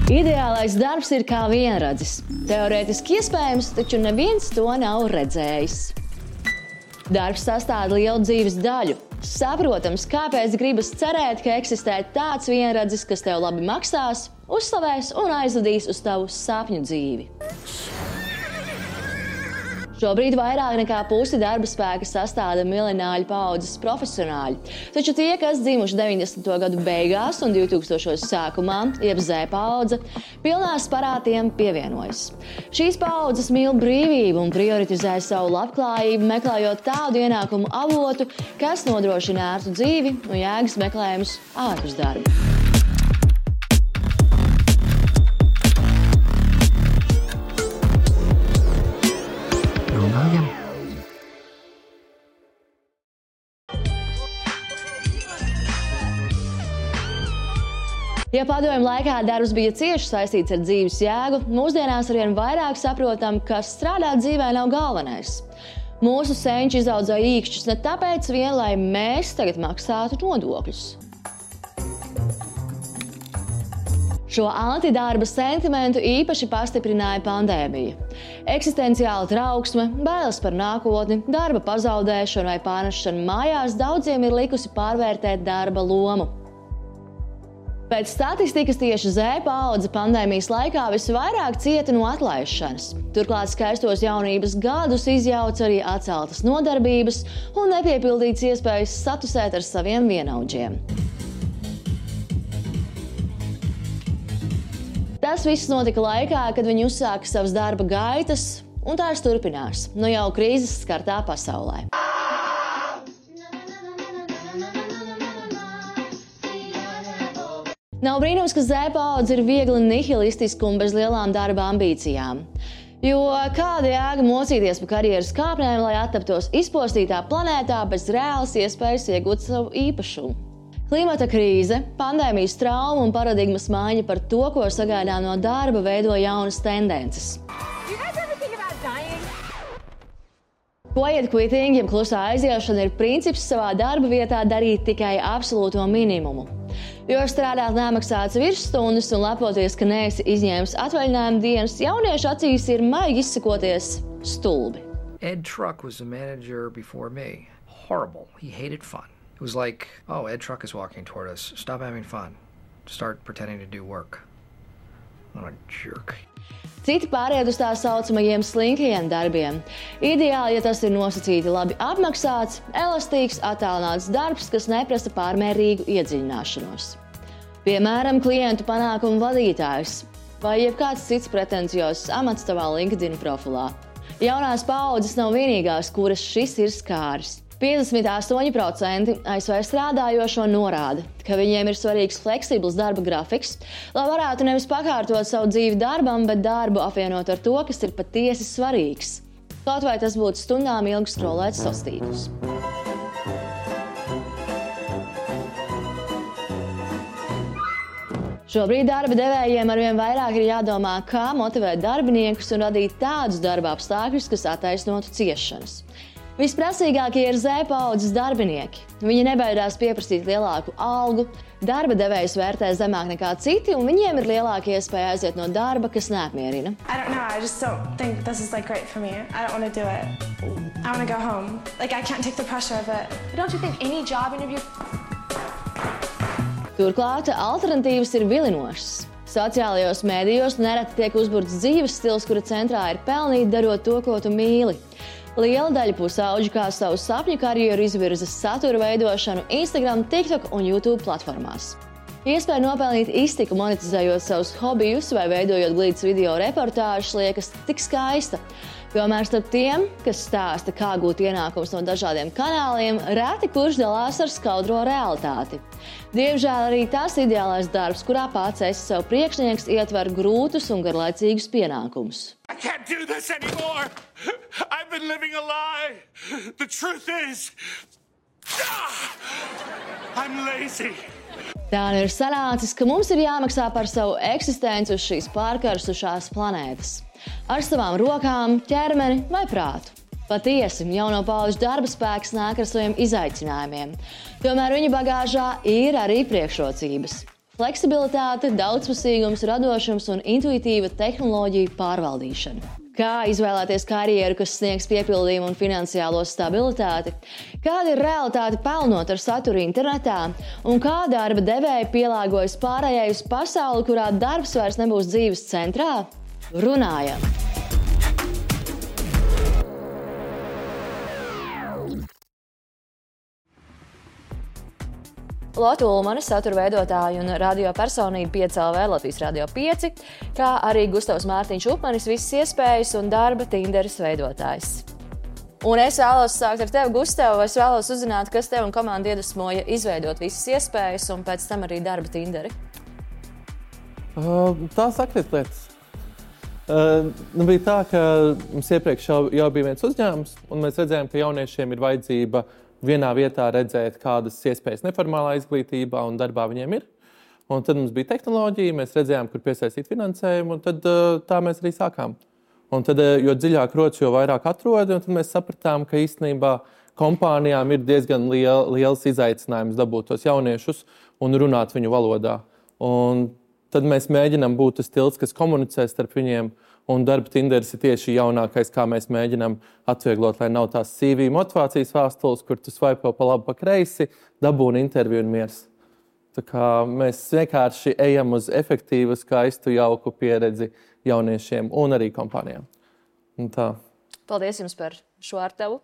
Ideālais darbs ir kā vienradzis. Teorētiski iespējams, taču neviens to nav redzējis. Darbs sastāv lielu dzīves daļu. Saprotams, kāpēc gribas cerēt, ka eksistē tāds vienradzis, kas tev labi maksās, uzslavēs un aizvedīs uz tavu sapņu dzīvi. Šobrīd vairāk nekā pusi darba spēka sastāda millenāļu paaudzes profesionāļi, taču tie, kas dzimuši 90. gadu beigās un 2000. sākumā, jeb Z paudze, pilnā sparā tiem pievienojas. Šīs paaudzes mīl brīvību un prioritizē savu labklājību, meklējot tādu ienākumu avotu, kas nodrošina ērtu dzīvi un jēgas meklējumus ārpus darba. Ja padomju laikā darbs bija cieši saistīts ar dzīves jēgu, mūsdienās arvien vairāk saprotam, ka strādāt dzīvē nav galvenais. Mūsu senči izaudzēja īkšķus ne tāpēc vien, lai mēs tagad maksātu nodokļus. Šo antidarba sentimentu īpaši pastiprināja pandēmija. Eksistenciāla trauksme, bailes par nākotni, darba pazaudēšanu vai pārnešanu mājās daudziem ir likusi pārvērtēt darba lomu. Pēc statistikas tieši Z paudze pandēmijas laikā visvairāk cieta no atlaišanas. Turklāt skaistos jaunības gadus izjauca arī atceltas nodarbības un nepiepildītas iespējas satusēt ar saviem vienaudžiem. Tas viss notika laikā, kad viņi uzsāka savas darba gaitas, un tās turpinās, nu jau krīzes skartā pasaulē. Nav brīnums, ka Z paudze ir viegli nihilistiska un bez lielām darba ambīcijām. Jo kāda jēga mocīties pa karjeras kāpnēm, lai attaptos izpostītā planētā bez reālas iespējas iegūt savu īpašumu? Klimata krīze, pandēmijas trauma un paradigmas maiņa par to, ko sagaidām no darba, veido jaunas tendences. Quiet quitting, jeb klusā aiziešana, ir princips savā darba vietā darīt tikai absolūto minimumu. Jo strādāt nemaksātas virsstundas un lepoties, ka neesi izņēmis atvaļinājuma dienas, jauniešu acīs ir maigi izsakoties stulbi. Ed Truck was the manager before me. Horrible. He hated fun. It was like, oh, Ed Truck is walking toward us. Stop having fun. Start pretending to do work. What a jerk. Citi pāriet uz tā saucamajiem slinkajiem darbiem. Ideāli, ja tas ir nosacīti labi apmaksāts, elastīgs, attālināts darbs, kas neprasa pārmērīgu iedziļināšanos. Piemēram, klientu panākumu vadītājs vai jebkāds cits pretenciozs amats tavā LinkedIn profilā. Jaunās paaudzes nav vienīgās, kuras šis ir skāris. 58% ASV strādājošo norāda, ka viņiem ir svarīgs fleksibls darba grafiks, lai varētu nevis pakārtot savu dzīvi darbam, bet darbu apvienot ar to, kas ir patiesi svarīgs. Kaut vai tas būtu stundām ilgi skrolēt sastīklus. Šobrīd darba devējiem arvien vairāk ir jādomā, kā motivēt darbiniekus un radīt tādus darba apstākļus, kas attaisnotu ciešanas. Visprasīgākie ir Z paudzes darbinieki. Viņi nebaidās pieprasīt lielāku algu, darba devējs vērtē zemāk nekā citi, un viņiem ir lielāka iespēja aiziet no darba, kas neapmierina. I just don't think this is great for me. I don't want to do it. I want to go home. I can't take the pressure of it. Don't you think any job interview... Turklāt alternatīvas ir vilinošas. Sociālajos mēdījos nereti tiek uzburts dzīves stils, kura centrā ir pelnīt, darot to, ko tu mīli. Liela daļa pusauģu kā savu sapņu karjeru izvirza satura veidošanu Instagram, TikTok un YouTube platformās. Iespēja nopelnīt iztiku monetizējot savus hobijus vai veidojot glītas video reportāžas liekas tik skaista. Tomēr starp tiem, kas stāsta, kā gūt ienākumus no dažādiem kanāliem, reti kurš dalās ar skaudro realitāti. Diemžēl arī tas ideālais darbs, kurā pats esi sev priekšnieks, ietver grūtus un garlaicīgus pienākumus. I can't do this anymore. I've been living a lie. The truth is, I'm lazy. Tā nu ir sanācis, ka mums ir jāmaksā par savu eksistenci uz šīs pārkarsušās planētas. Ar savām rokām, ķermeni vai prātu. Patiesi, jauno paudžu darba spēks nāk ar saviem izaicinājumiem. Tomēr viņa bagāžā ir arī priekšrocības. Fleksibilitāte, daudzpusīgums, radošums un intuitīva tehnoloģiju pārvaldīšana. Kā izvēlēties karjeru, kas sniegs piepildījumu un finansiālo stabilitāti? Kāda ir realitāte pelnot ar saturu internetā? Un kā darba devēji pielāgojas pārējai uz pasauli, kurā darbs vairs nebūs dzīves centrā? Runājam! Lotte Ulmane, satura veidotāja un radio personība 5LV Latvijas Radio 5, kā arī Gustavs Mārtiņš Upmanis, visas iespējas un darba Tinderis veidotājs. Un es vēlos sākt ar tevi, Gustav, es vēlos uzzināt, kas tev un komandu iedvesmoja izveidot visas iespējas un pēc tam arī darba Tinderi. Tā sakrit lietas. Bija tā, ka mums iepriekš jau bija viens uzņēmums, un mēs redzējām, ka jauniešiem ir vajadzība vienā vietā redzēt, kādas iespējas neformālā izglītībā un darbā viņiem ir. Un tad mums bija tehnoloģija, mēs redzējām, kur piesaistīt finansējumu, un tad tā mēs arī sākām. Un tad, jo dziļāk rodas, jo vairāk atrodi, un tad mēs sapratām, ka īstenībā kompānijām ir diezgan liels izaicinājums dabūt tos jauniešus un runāt viņu valodā. Un tad mēs mēģinām būt tas tilts, kas komunicē starp viņiem, un darba Tinderis ir tieši jaunākais, kā mēs mēģinām atvieglot, lai nav tās CV motivācijas vēstules, kur tu svaipo pa labi, pa kreisi, dabūni interviju un miers. Tā kā mēs vienkārši ejam uz efektīvu, skaistu, jauku pieredzi jauniešiem un arī kompānijām. Un tā. Paldies jums par šo ar tevu.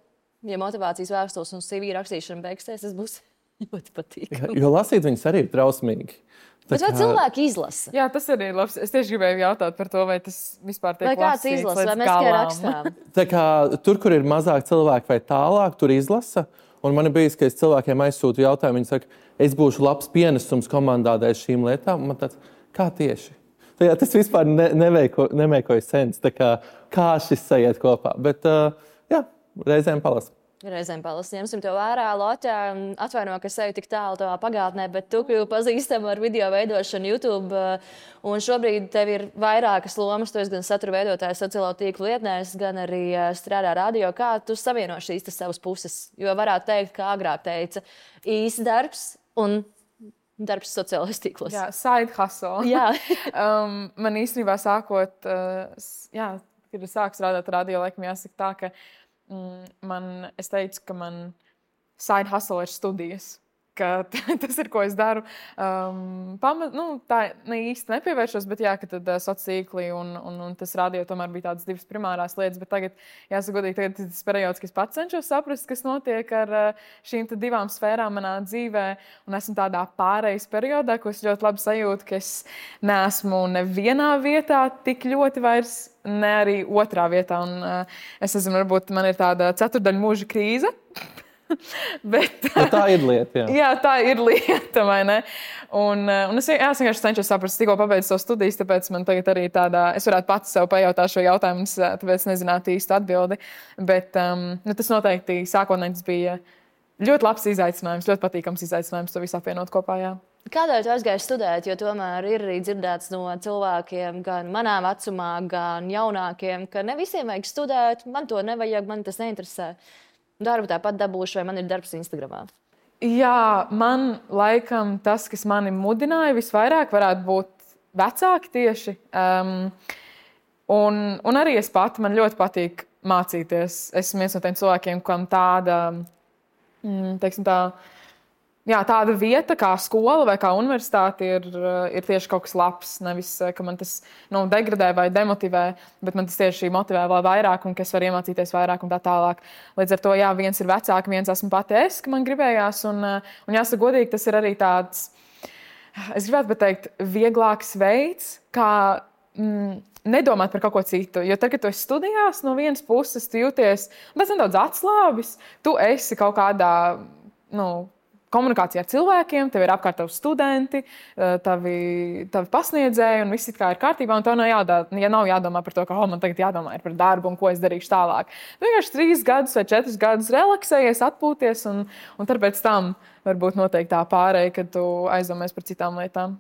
Ja motivācijas vēstules un CV rakstīšana beigsies, tas būs ļoti patīkami. Jo lasīt viņas arī ir trausmīgi. Bet vai cilvēki izlasa? Jā, tas arī ir labs. Es tieši gribēju jautāt par to, vai tas vispār tiek lasīts. Vai kāds izlasa, vai mēs tikai rakstām? Tā kā tur, kur ir mazāk cilvēku vai tālāk, tur izlasa. Un man ir bijis, ka es cilvēkiem aizsūtu jautājumu, viņi saka, es būšu labs pienesums komandā dēļ šīm lietām. Man tāds, kā tieši? Tā, tas vispār nemekoja sens, tā kā šis sajiet kopā. Bet, jā, reizēm palasa. Reizēm palasa. Ņemsim to vērā, Lotte. Atvaino, ka es eju tik tālu tavā pagātnē, bet tu kļuvi pazīstama ar video veidošanu YouTube. Un šobrīd tev ir vairākas lomas. Tu esi gan satura veidotājs sociālo tīklu lietnēs, gan arī strādā radio. Kā tu savieno šīs savas puses? Jo varētu teikt, kā agrāk teica, īsts darbs un darbs sociālajos tīklos. Jā, side hustle. Jā. Man īstenībā sākot, kad es sāku strādāt radio, laikam jāsaka tā, ka es teicu, ka man side hustle ir studijas, ka tas ir, ko es daru. Tā ne īsti nepievēršos, bet jā, ka tad sociālīkli un tas radio tomēr bija tādas divas primārās lietas, bet tagad, jāsaka godīgi, tagad tas periods, ka es pats cenšos saprast, kas notiek ar šīm divām sfērām manā dzīvē, un esmu tādā pārejas periodā, ko es ļoti labi sajūtu, ka es neesmu nevienā vietā tik ļoti vairs, ne arī otrā vietā, un es nezinu, varbūt man ir tāda ceturdaļa mūža krīze. Bet tā ir lieta, jā. Jā, tā ir lieta, vai ne? Un es vienkārši cenšos saprast, tikko pabeidzu savu studijas, tāpēc man tagad arī tādā, es varētu pats sev pajautāt šo jautājumu, tāpēc nezinātu īstu atbildi. Bet tas noteikti sākotnēji tas bija ļoti labs izaicinājums, ļoti patīkams izaicinājums to visu apvienot kopā, jā. Kādēļ tu aizgāji studēt, jo tomēr ir arī dzirdēts no cilvēkiem, gan manā vecumā, gan jaunākiem, ka ne visiem vajag studēt, man to nevajag, man tas neinteresē. Darbu tāpat dabūšu, vai man ir darbs Instagramā? Jā, man laikam tas, kas mani mudināja visvairāk, varētu būt vecāki tieši. Un arī es pati, man ļoti patīk mācīties. Esmu viens no tiem cilvēkiem, kam tāda, teiksim tā, jā, tāda vieta kā skola vai kā universitāte ir tieši kaut kas labs. Nevis, ka man tas degradē vai demotivē, bet man tas tieši motivē vēl vairāk un ka es varu iemācīties vairāk un tā tālāk. Līdz ar to, jā, viens ir vecāki, viens esmu pati es, ka man gribējās. Un jāsaka godīgi, tas ir arī tāds, es gribētu pateikt, vieglāks veids, kā nedomāt par kaut ko citu. Jo tad, kad tu esi studijās, no vienas puses tu jūties nedaudz atslābis, tu esi kaut kādā, komunikācijā ar cilvēkiem, tev ir apkārt tavi studenti, tavi pasniedzēji un viss it kā ir kārtībā, un tev nav jādomā par to, ka man tagad jādomā par darbu un ko es darīšu tālāk. Tu vienkārši 3 gadus vai 4 gadus relaksējies, atpūties, un tad pēc tam varbūt noteikti tā pārēja, kad tu aizdomājies par citām lietām.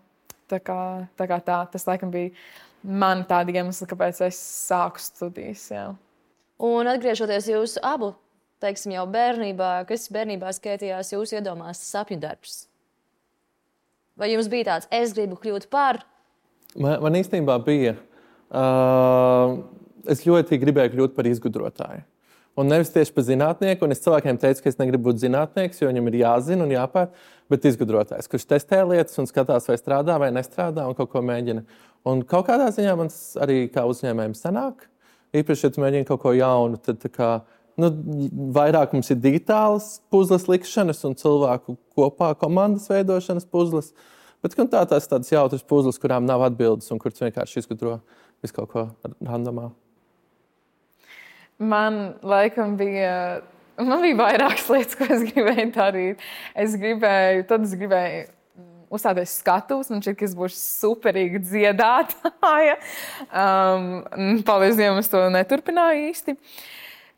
Tā kā tas laikam bija man tādi iemesli, kāpēc es sāku studijas. Jā. Un atgriežoties jūsu abu, teiksim, jau bērnībā, kas bērnībā skaitījās jūsu iedomās sapņu darbs? Vai jums bija tāds, es gribu kļūt par? Man īstenībā bija. Es ļoti gribēju kļūt par izgudrotāju. Un nevis tieši par zinātnieku, un es cilvēkiem teicu, ka es negribu būt zinātnieks, jo viņam ir jāzina un jāpēt, bet izgudrotājs, kurš testē lietas un skatās, vai strādā vai nestrādā un kaut ko mēģina. Un kaut kādā ziņā man arī kā uzņēmējiem sanāk. Īpaši, ja tu mēģini kaut ko jaunu, tad tā kā, vairāk mums ir digitālas puzles likšanas un cilvēku kopā komandas veidošanas puzles. Bet tās tādas jautras puzles, kurām nav atbildes un kuras vienkārši izgudro visu kaut ko randomā. Man laikam bija vairākas lietas, ko es gribēju darīt. Es gribēju uzstāties skatuves, man šķiet, ka es būšu superīga dziedātāja. Paldies Dievam, es to neturpināju īsti.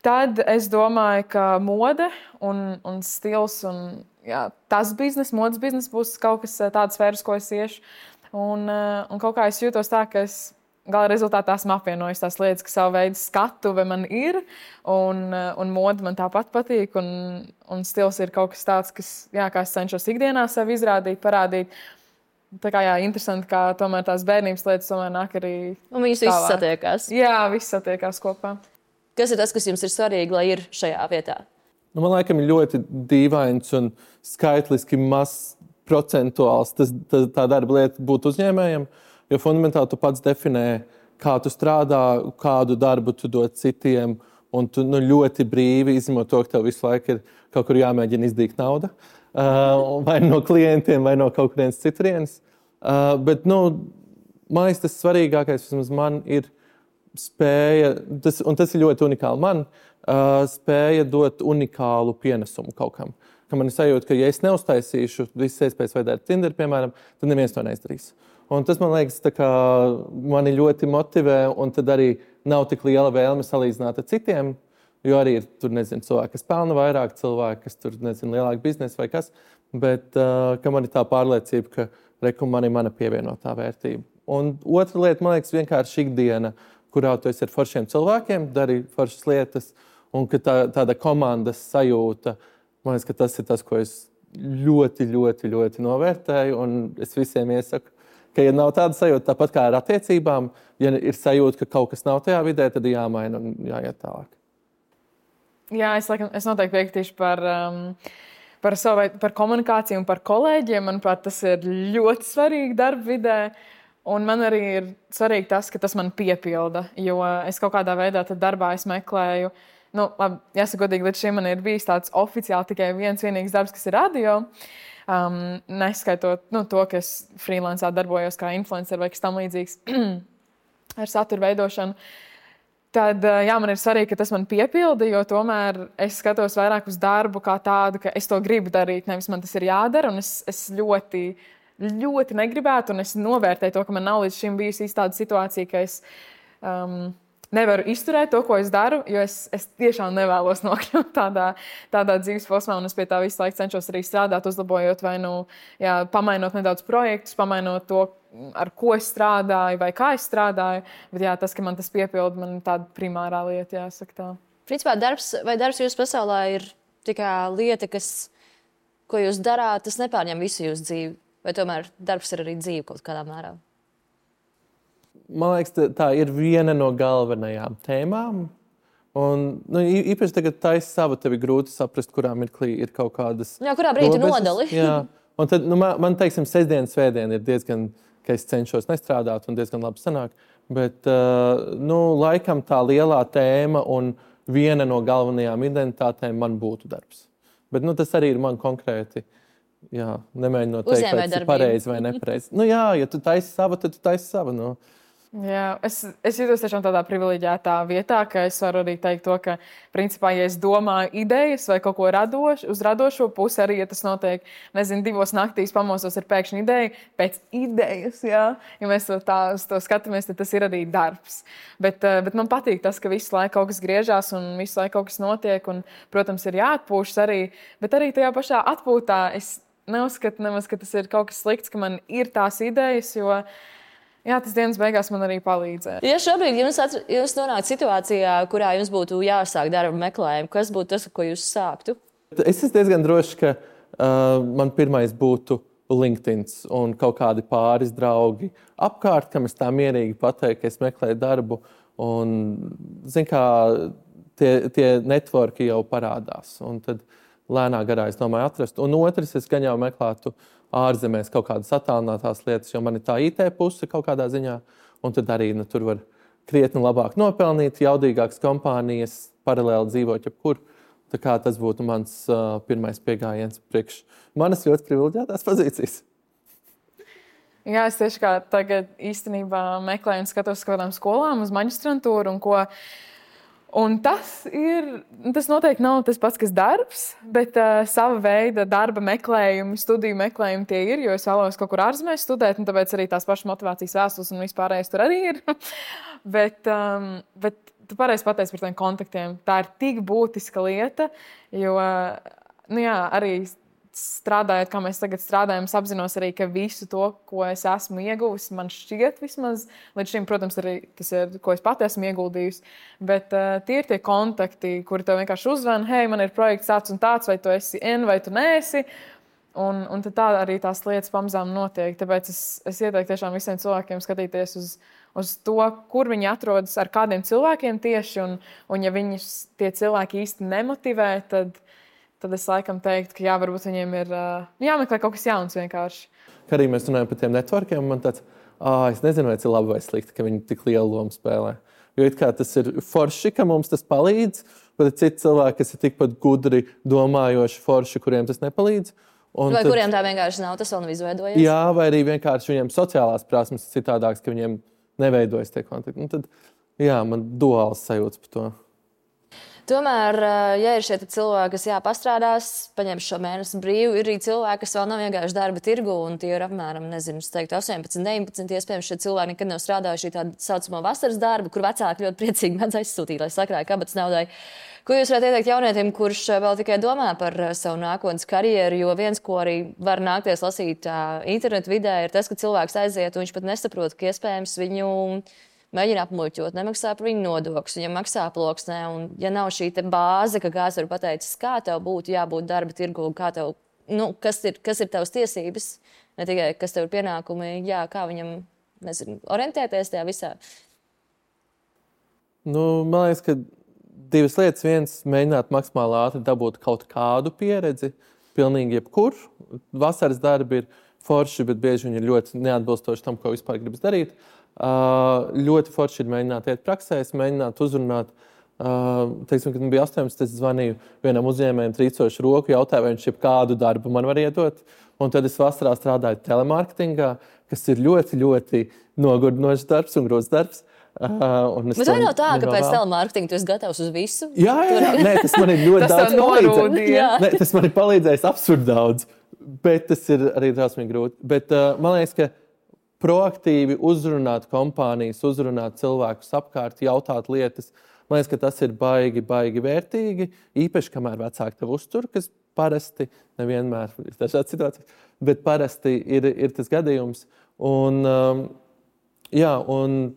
Tad es domāju, ka mode un stils un tas modes biznes būs kaut kas tāds sfēras, ko es iešu. Un kaut kā es jūtos tā, ka es gala rezultātā esmu apvienojis tās lietas, ka savu veidu skatuve man ir, un mode man tāpat patīk, un stils ir kaut kas tāds, kā es cenšos ikdienā sevi izrādīt, parādīt. Tā kā interesanti, kā tomēr tās bērnības lietas tomēr nāk arī un viņas visas satiekās. Jā, visas satiekās kopā. Kas ir tas, kas jums ir svarīgi, lai ir šajā vietā? Man laikam ir ļoti dīvains un skaitliski mazs procentuāls tā darba lieta būt uzņēmējiem. Jo fundamentāli tu pats definē, kā tu strādā, kādu darbu tu dod citiem, un tu ļoti brīvi izņemot to, ka tev visu laiku ir kaut kur jāmēģina izdīt nauda. Vai no klientiem, vai no kaut kurienes citurienes. Bet, man liekas, tas svarīgākais vismaz man ir spēja, un tas ir ļoti unikāli man, spēja dot unikālu pienesumu kaut kam. Ka man ir sajūta, ka ja es neuztaisīšu visas iespējas vai darīt Tinder, piemēram, tad neviens to neizdarīs. Un tas, man liekas, mani ļoti motivē, un tad arī nav tik liela vēlme salīdzināt ar citiem, jo arī ir tur, cilvēki, kas pelna vairāk, cilvēki, kas tur, lielāku biznesu vai kas, bet ka man ir tā pārliecība, ka man ir mana pievienotā vērtība. Un otra lieta, man liekas, vienkārši ikdiena, kurā tu esi ar foršiem cilvēkiem, dari foršas lietas, un ka tāda komandas sajūta, man liekas, ka tas ir tas, ko es ļoti, ļoti, ļoti novērtēju, un es visiem iesaku, ka, ja nav tāda sajūta, tāpat kā ar attiecībām, ja ir sajūta, ka kaut kas nav tajā vidē, tad ir jāmaina un jāiet tālāk. Jā, es noteikti piekritīšu par komunikāciju un par kolēģiem. Manuprāt, tas ir ļoti svarīgi darba vidē. Un man arī ir svarīgi tas, ka tas man piepilda, jo es kaut kādā veidā darbā meklēju. Jāsaka godīgi, līdz šim man ir bijis tāds oficiāli tikai viens vienīgs darbs, kas ir radio. Neskaitot to, ka es freelancā darbojos kā influencer vai kas tam līdzīgs ar satura veidošanu, tad man ir svarīgi, ka tas man piepilda, jo tomēr es skatos vairāk uz darbu kā tādu, ka es to gribu darīt, nevis man tas ir jādara, un es ļoti, ļoti negribētu, un es novērtēju to, ka man nav līdz šim bijusi tāda situācija, ka es nevaru izturēt to, ko es daru, jo es tiešām nevēlos nokļūt tādā dzīves posmā, un es pie tā visu laiku cenšos arī strādāt, uzlabojot vai pamainot nedaudz projektus, pamainot to, ar ko es strādāju vai kā es strādāju. Bet tas, ka man tas piepilda, man ir tāda primārā lieta, jāsaka tā. Principā darbs jūsu pasaulē ir tikai lieta, ko jūs darāt, tas nepārņem visu jūsu dzīvi, vai tomēr darbs ir arī dzīve kaut kādā mērā? Man liekas, tā ir viena no galvenajām tēmām. Un, īpaši tagad taisa sava, tev ir grūti saprast, kurā mirklī ir kaut kādas jā, kurā brīdī nodali. Jā. Un tad, man teiksim, sestdiena, svētdiena ir diezgan, ka es cenšos nestrādāt un diezgan labi sanāk. Bet, laikam tā lielā tēma un viena no galvenajām identitātēm man būtu darbs. Bet, tas arī ir man konkrēti. Jā, nemēģinot teikt, vai tas ir pareizi vai nepareizi. Ja tu taisi savu, tad tu taisi savu. Jā, es jūtos tiešām tādā privileģētā vietā, ka es varu arī teikt to, ka, principā, ja es domāju idejas vai kaut ko radošu, uz radošo pusi arī, ja tas notiek, 2 naktīs pamosos ir pēkšņi ideja, pēc idejas, jā. Ja mēs to skatāmies, tad tas ir arī darbs. Bet man patīk tas, ka visu laiku kaut kas griežās un visu laiku kaut kas notiek, un, protams, ir jāatpūšas arī, bet arī tajā pašā atpūtā es neuzskatu nemaz, ka tas ir kaut kas slikts, ka man ir tās idejas, jo tas dienas beigās man arī palīdzēja. Ja šobrīd jūs nonākat situācijā, kurā jums būtu jāsāk darba meklējumu, kas būtu tas, ko jūs sāktu? Es esmu diezgan drošs, ka man pirmais būtu LinkedIn un kaut kādi pāris draugi apkārt, kam es tā mierīgi pateiktu, ka es meklēju darbu. Un, zin kā, tie networki jau parādās. Un tad lēnā garā es domāju atrast. Un otrs, es gan jau meklētu ārzemēs kaut kādas attālinātās lietas, jo man ir tā IT puse kaut kādā ziņā. Un tad arī tur var krietni labāk nopelnīt, jaudīgākas kompānijas, paralēli dzīvot jebkur. Tā kā tas būtu mans pirmais piegājiens priekš manas ļoti privileģētās pozīcijas. Jā, es tieši kā tagad īstenībā meklēju un skatos uz kādām skolām, uz maģistrantūru un ko. Un tas noteikti nav tas pats, kas darbs, bet sava veida darba meklējumi, studiju meklējumi tie ir, jo es vēlos kaut kur ārzemēs studēt, un tāpēc arī tās pašas motivācijas vēstules un vispārējais tur arī ir. bet tu pareizi pateici par tiem kontaktiem. Tā ir tik būtiska lieta, jo arī strādājot, kā mēs tagad strādājam, es apzinos arī, ka visu to, ko es esmu ieguvusi, man šķiet vismaz, līdz šim, protams, arī tas ir, ko es pati esmu ieguldījusi, bet tie ir tie kontakti, kuri tev vienkārši uzvana, hei, man ir projekts tāds un tāds, vai tu esi vai tu neesi, un tad tā arī tās lietas pamazām notiek. Tāpēc es ieteiktu tiešām visiem cilvēkiem skatīties uz to, kur viņi atrodas, ar kādiem cilvēkiem tieši, un ja viņus tie cilvēki īsti nemotivē, tad es laikam teiktu, ka varbūt viņiem ir jāmeklē kaut kas jauns vienkārši. Kā arī mēs runājam par tiem networkiem, man tāds, es nezinu, vai tas ir labi vai slikti, ka viņi tik lielu lomu spēlē. Jo it kā tas ir forši, ka mums tas palīdz, bet ir citi cilvēki, kas ir tikpat gudri domājoši forši, kuriem tas nepalīdz. Vai kuriem tā vienkārši nav, tas vēl nav izveidojies? Jā, vai arī vienkārši viņiem sociālās prasmes ir citādākas, ka viņiem neveidojas tie kontakti. Un tad, man duāls sajūts par to. Tomēr, ja ir šie cilvēki, kas pastrādās, paņem šo mēnesi brīvu, ir arī cilvēki, kas vēl nav vienkārši darba tirgu, un tie ir apmēram, 18, 19, iespējams, šie cilvēki nekad nav strādājuši tā saucamo vasaras darbu, kur vecāki ļoti priecīgi mēdz aizsūtīt, lai sakrāja kabatas naudai. Ko jūs varētu ieteikt jaunietim, kurš vēl tikai domā par savu nākotnes karjeru, jo viens, ko arī var nākties lasīt internetu vidē, ir tas, ka cilvēks aiziet, un viņš pat nesaprot, ka iespējams viņu mēģina apmuļķot, nemaksā par viņu nodokļus, viņam maksā ploksnē, un ja nav šī bāze, ka kāds var pateicis, kā tev būtu jābūt darba tirgu, kā tev, kas ir tavas tiesības, ne tikai kas tev ir pienākumi, kā viņam, orientēties tajā visā. Man liekas, ka divas lietas. Viens, mēģināt maksimāli ātri dabūt kaut kādu pieredzi, pilnīgi jebkur. Vasaras darbi ir forši, bet bieži viņi ir ļoti neatbilstoši tam, ko vispār gribas darīt. Ļoti forši ir mēģināt iet praksēs, mēģināt uzrunāt. Teiksim, kad man bija 18, es zvanīju vienam uzņēmējam trīcošu roku, jautāju, vai viņš jebkādu darbu man var iedot. Un tad es vasarā strādāju telemarketingā, kas ir ļoti, ļoti nogurdinošs darbs un grūts darbs. Bet vai nav tā, ka pēc telemarketinga tu esi gatavs uz visu? Jā. Nē, tas man ir ļoti daudz palīdzējis. Tas man ir palīdzējis absurdi daudz, bet tas ir arī drausmīgi grūti. Bet man liekas, ka proaktīvi uzrunāt kompānijas, uzrunāt cilvēkus apkārt, jautāt lietas, man liekas, ka tas ir baigi vērtīgi, īpaši, kamēr vecāki tev uztur, kas parasti, nevienmēr ir dažādas situācijas, bet parasti ir tas gadījums. Un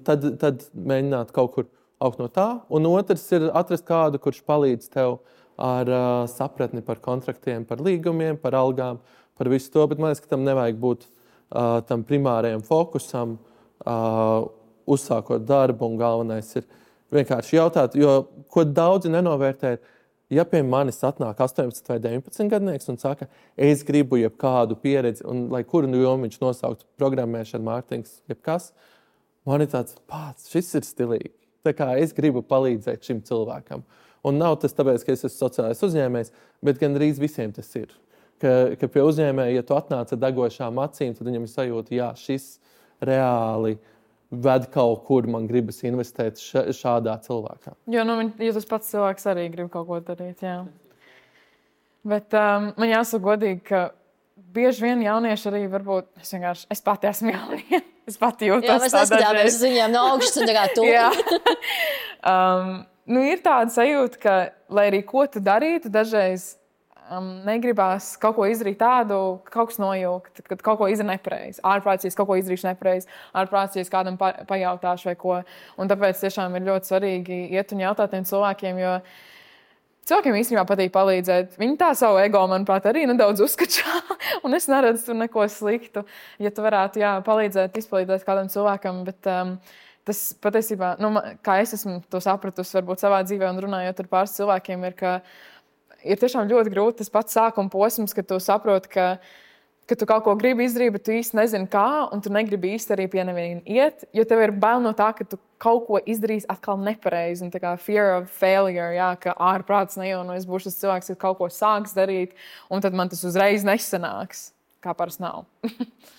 tad mēģināt kaut kur augt no tā. Un otrs ir atrast kādu, kurš palīdz tev ar sapratni par kontraktiem, par līgumiem, par algām, par visu to. Bet man liekas, ka tam nevajag būt tam primārajam fokusam, uzsākot darbu. Un galvenais ir vienkārši jautāt, jo ko daudzi nenovērtē, ja pie manis atnāk 18 vai 19 gadnieks un saka, es gribu jebkādu pieredzi, un lai kuru jomu viņš nosauktu programmēšana, mārketings, jebkas, man ir tāds, šis ir stilīgi. Tā kā es gribu palīdzēt šim cilvēkam. Un nav tas tāpēc, ka es esmu sociālais uzņēmējs, bet gan drīz visiem tas ir. Ka pie uzņēmēja, ja tu atnāc ar degošām acīm, tad viņam ir sajūta, šis reāli ved kaut kur, man gribas investēt šādā cilvēkā. Jo tas pats cilvēks arī grib kaut ko darīt, jā. Bet man jāsaka godīgi, ka bieži vien jaunieši arī varbūt, es pati esmu jaunie. Es pati jūtos tā dažreiz. Jā, mēs neskatāmies uz viņiem no augšas un tā kā tu. Jā. Ir tāda sajūta, ka, lai arī ko tu darītu, dažreiz negribās kaut ko izdarīt tādu, ka kaut kas nojaukt, kad kaut ko izdara nepareizi. Ārprātīgi kaut ko izdarīšu nepareizi, ārprātīgi kādam pajautāšu vai ko. Un tāpēc tiešām ir ļoti svarīgi iet un jautāt tiem cilvēkiem, jo cilvēkiem īstenībā patīk palīdzēt. Viņi tā savu ego, manuprāt, arī nedaudz uzskačā, un es neredzu tur neko sliktu, ja tu varētu palīdzēt, izpalīdzēt kādam cilvēkam, bet tas patiesībā, kā es esmu to sapratusi, varbūt savā dzīvē un runājot ar pāris cilvēkiem, ir tiešām ļoti grūti tas pats sākuma posms, kad tu saproti, ka tu kaut ko gribi izdarīt, bet tu īsti nezini kā, un tu negribi īsti arī pie neviena iet, jo tev ir bail no tā, ka tu kaut ko izdarīsi atkal nepareizi, un tā kā fear of failure, ka ārprāts nejauno, es būšu tas cilvēks, kad kaut ko sāks darīt, un tad man tas uzreiz nesanāks, kā parasti nav.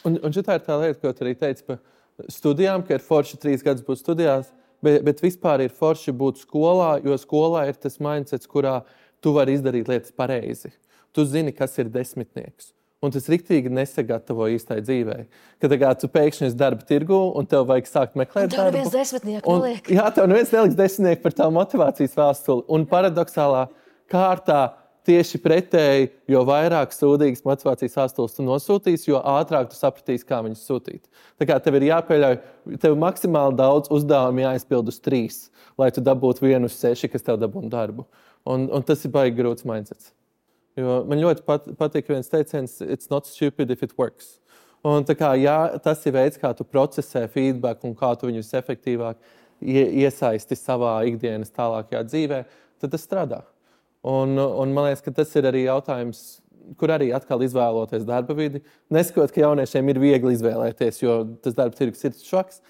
un šitā ir tā lieta, ko tu arī teici par studijām, ka ir forši 3 gadus būt studijās, bet vispār ir forši būt skolā, jo skolā ir tas mindsets, kurā tu vari izdarīt lietas pareizi. Tu zini, kas ir desmitnieks. Un tas riktīgi nesagatavo īstai dzīvei. Kad tu pēkšņi esi darba tirgu un tev vajag sākt meklēt darbu. Un tev neviens desmitnieku neliek. Jā, tev neviens neliks desmitnieku par tavu motivācijas vēstuli. Un paradoxālā kārtā tieši pretēji, jo vairāk sūdīgas motivācijas vēstules tu nosūtīsi, jo ātrāk tu sapratīsi, kā viņus sūtīt. Tā kā tev ir jāpieļauj, tev maksimāli daudz uzdevumu jāizpild uz 3, lai tu dabūtu 1 uz 6, kas tev dabūtu darbu. Un tas ir baigi grūts mindsets. Jo man ļoti patīk viens teiciens, it's not stupid if it works. Un tā kā, ja tas ir veids, kā tu procesē feedback un kā tu viņus efektīvāk iesaisti savā ikdienas tālākajā dzīvē, tad tas strādā. Un man liekas, ka tas ir arī jautājums, kur arī atkal izvēloties darba vidi. Neskot, ka jauniešiem ir viegli izvēlēties, jo tas darba tirgus ir švaks,